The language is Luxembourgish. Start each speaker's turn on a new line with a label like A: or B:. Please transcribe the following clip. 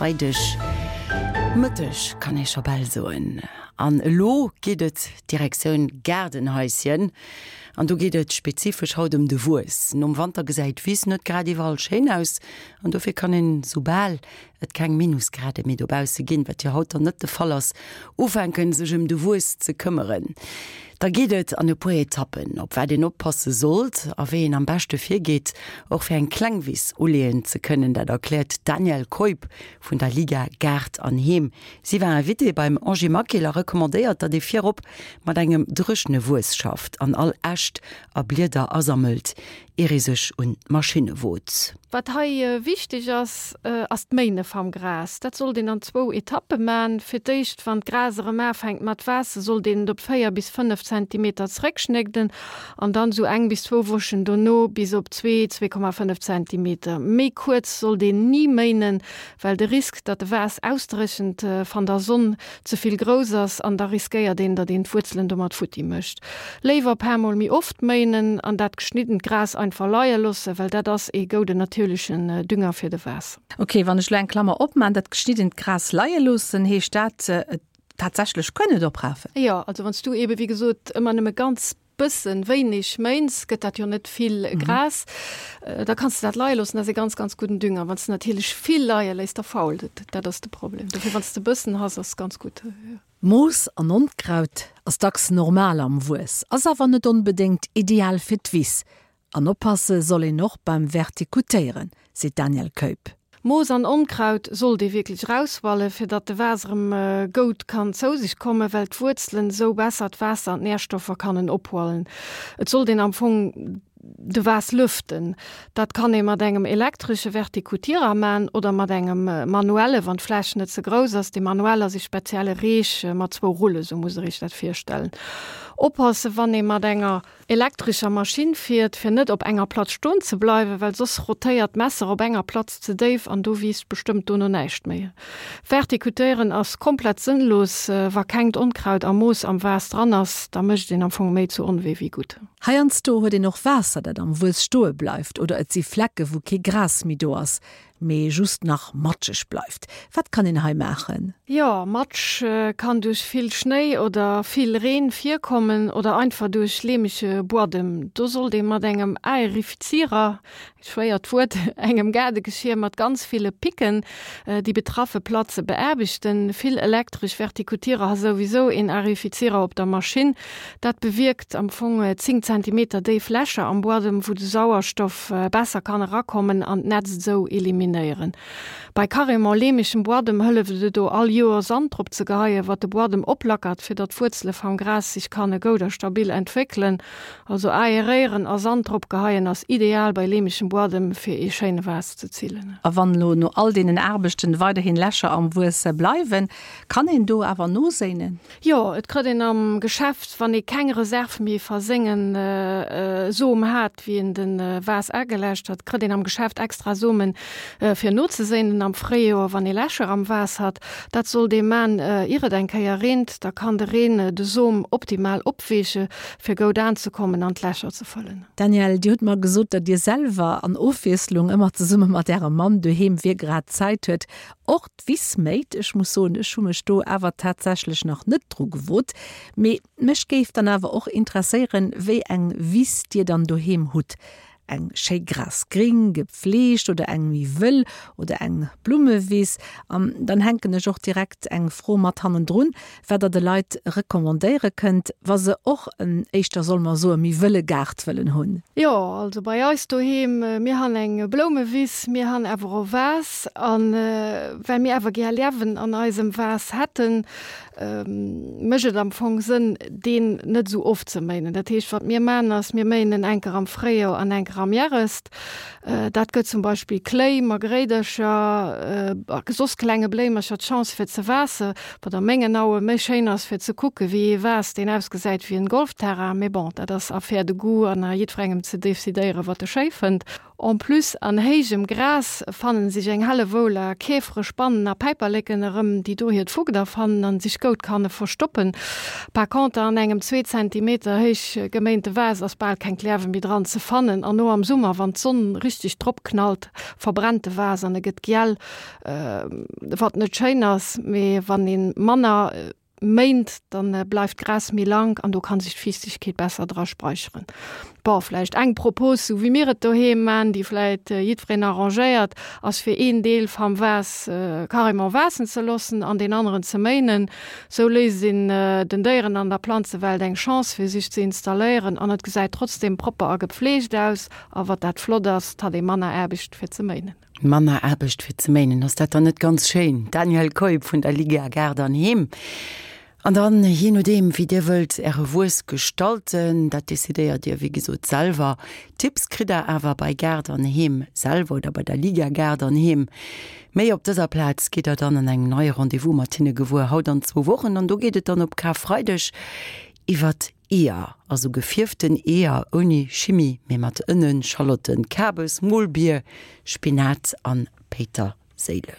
A: Freideg Mëtteg kann ee scho bal soen. An elo geet et Direktioun Gaardenhaischen. An do geet et spezifesch haut ëm de Wues. Nom Wanter gesäit d'Wiss net grad iwwerall schéin aus an dofir kann een, soubal et keng Minusgrade méi dobausse ginn, wat jo haut dann net de Fall ass, ufänken sech ëm de Wues ze këmmeren. Da geet et an e puer Etappen, op wat een oppasse sollt a wéi een am beschte virgeet, och fir eng kleng Wiss uleeën ze kënnen. Dat erkläert d'Danièle Keup vun der Liga Gaart an Heem. Si war Invitée beim Angie Maquil a recommandéiert, datt ee virop mat engem dréchene Wues schafft an all Äscht a Blieder asammelt, ier ee sech un d'Maschinne wot.
B: Wat hei wichteg ass, ass d'Méine vam Gras. Dat sollt een an zwou Etappe man. Fir d'éischt, wann d'Gras erëm aafänkt mat waassen, sollt een et op 4 bis 5 Zentimeter zréckschnégden an dann sou eng bis zwou Wochen dono bis op zwee, 2,5 Zentimeter. Méi kuerz sollt een ni méinen, well de Risk, datt de Waass ausdréchent van der Sonn, ze vill grouss ass an da riskéiert een, datt een d'Wuerzelen domat futti mécht. Léiwer paar mol méi oft méinen an dat geschniddent Gras einfach leie loossen, well dat ass ee gouden natierlechen Dünger fir de Waass.
C: Ok, wann ech lo eng Klammer opmaan, dat geschniddent Gras leie loossen, heescht dat et tatsächlech kënn et oprafen?
B: Jo, also wann s du eben wéi gesot ëmmer nëmme ganz bëssen wéineg méins, gëtt dat jo net vill Gras. Da kanns de dat leie loossen, dat ass e ganz, ganz gudden Dünger. Wann s de natierlech vill leie léiss, da fault et. Dat ass de Problem. Dofir, wann s de bëssen has, ass ganz gutt.
C: Moos an Onkraut ass dacks normal am Wues, ass awer net onbedéngt ideal fir d'Wiss. An oppasse soll een och beim Vertikutéieren, seet d'Danièle Keup.
B: Moos an Onkraut sollt ee wierklech rauswallen, fir datt de Waas erëm goud kann zou sech kommen, well d'Wuerzelen esou besser d'Waasser an d'Nährstoffer kannen ophualen. Et sollt een am Fong de Waas lüften. Dat kann ee mat engem elektresche Vertikutierer man oder mat engem manuelle, wann d'Fläch net ze grouss ass. Dee manuell ass ee spezielle Reech mat zwou Rullen, sou muss der iech dat virstellen. Oppassen, wann ee mat enger Elektrescher Maschinn fiert, fir net op enger Platz stoen ze bleiwen, well soss rotéiert d'Messer op enger Platz ze déif an do wiisst bestëmmt dono näischt méi. Vertikutéieren ass komplett sënnlos, wa kengt Onkraut a Moos am Vase dran ass, da mécht een am Fong méi zu Onwee wéi gutt.
C: Heiansdo huet een och Waasser, dat am Wues stoe bleift oder et si Flecke wou kee Gras méi do ass. Mee just nach matscheg bleift. Wat kann een hei maachen?
B: Jo, Matsch kann duerch vill Schnéi oder vill Reen virkommen oder einfach duerch leemege Buadem. Do sollt ee mat engem Aerifizierer, schwéiert Wuert, engem Gaardegeschier mat ganz ville Picken, déi betraffe Platze beaarbechten. Vill elektresch Vertikutierer ha souwisou een Aerifizierer op der Maschinn. Dat bewierkt am Fong 10 Zentimeter déif Lächer am Buadem, wou de Sauerstoff besser kann erakommen an d'Nätzt esou eliminéieren. Bei carrément leemegem Buadem hëlleft et do all Joer Sand drop ze geheien, wat de Buadem oplackert, fir datt d'Wuerzele vam Gras sech kanne goud a stabil entwéckelen. Also aeréieren a Sand drop geheien ass ideal bei leemegem Buadem fir ee schéine Vase ze zillen.
C: A wann elo no all deenen Aarbechten weiderhin Lächer am Wues bleiwen, kann een do awer noséinen?
B: Jo, et krëtt een am Geschäft, wann ee keng Reserv méi va sengen Som hat, wéi een den Vas ageläscht hat, krëtt een am Geschäft extra Somen fir nozeséinen am Fréijoer, wann ee Lächer am Vas hat. Dat sollt ee man, ier et eng Kéier reent, da kann de Reen de Som optimal opweeche fir goud aanzekommen an d'Lächer ze fëllen.
C: Danièle, Dir hutt mer gesot, datt Dir selwer an Ofwiesslung ëmmer zesumme mat Ärem Mann doheem, wie grad Zäit huet, och D'Wiss méit. Ech muss soen, ech hu mech do awer tatsächlech nach net dru gewot. Mee mech géif dann awer och interesséieren, wéi eng Wiss Dir dann doheem hutt. Eng schéi grasgring, gepfleegt oder eng méi wëll oder eng Blummewiss? An dann hänken ech och direkt eng Fro mat hannendrun, wat Der de Leit recommandéiere kënnt, wa se och en, éischter solle mer soen, méi wëlle Gaart wëllen hunn.
B: Jo, also bei eis doheem, mir han eng Bloumewiss, mir han awer och Vase. An well mir awer gär Liewen an eisem Vase hätten, mécht et am Fong Sënn, deen net esou oft ze méinen. Dat heescht, wat mir man ass, mir méinen en enker am Fréijoer an enker am Järest. Dat gëtt zum Beispill Kléi, Margréidercher a soss klenge Bléimercher d'Chance fir ze waasse, wat a mengen Aue méi schéin ass fir ze kucke wéi ee Vase deen ausgesäit wéi en Golfterrain. Mee bon, dat ass Affaire de goût an a jiddwerengem ze decidéieren, wat e schéi fënnt. En plus, an héijem Gras fannen sech eng Hellewoull a Käfere, Spannen a Päiperleken erëm, déi do hiert Fugder fannen an sech goud kanne verstoppen. Par conter, an engem zwee Zentimeter héich geméinte Vase ass bal keng Klärwe méi dran ze fannen. An no am Summer, wann d'Sonn richteg drop knallt, verbrennt de Vase an e gëtt giel, wat net schéin ass. Mee wann ee manner méint, dann bleift d'Gras méi lank an do kann sech d'Fiichtegkeet besser dra speicheren. Bon, vläicht eng Propos, sou wéi mir et doheem man, déi vläicht jiddwereen arrangéiert, ass fir een Deel vam Vase carrément waassen ze loossen an deen aneren ze méinen. Sou léisst een den Déieren an der Planzewelt eng Chance fir sech ze installéieren an et gesäit trotzdem propper a gepfleegt aus. A wat dat flott ass, 't hat ee manner Aarbecht fir ze méinen.
A: Manner Aarbecht fir ze méinen, ass dat dann net ganz schéin? Danielle Keup vun der Liga Gaart an Heem. An dann, jee nodeem wéi Dir wëllt Äre Wuess gestalten, dat decidéiert Dir wéi gesot selwer. Tipps kritt Der awer bei Gaart an Heem selwer oder bei der Liga Gaart an Heem. Méi op dëser Plaz gitt Der dann an engem neie Rendez-vous mat hinne gewuer, haut an zwou Wochen. An do geet et dann op Karfreideg iwwert Eeër, also gefierften Eeër ouni Chimie, mee mat Ënnen, Schalotten, Kabes, Molbier, Spinat an Péiterséileg.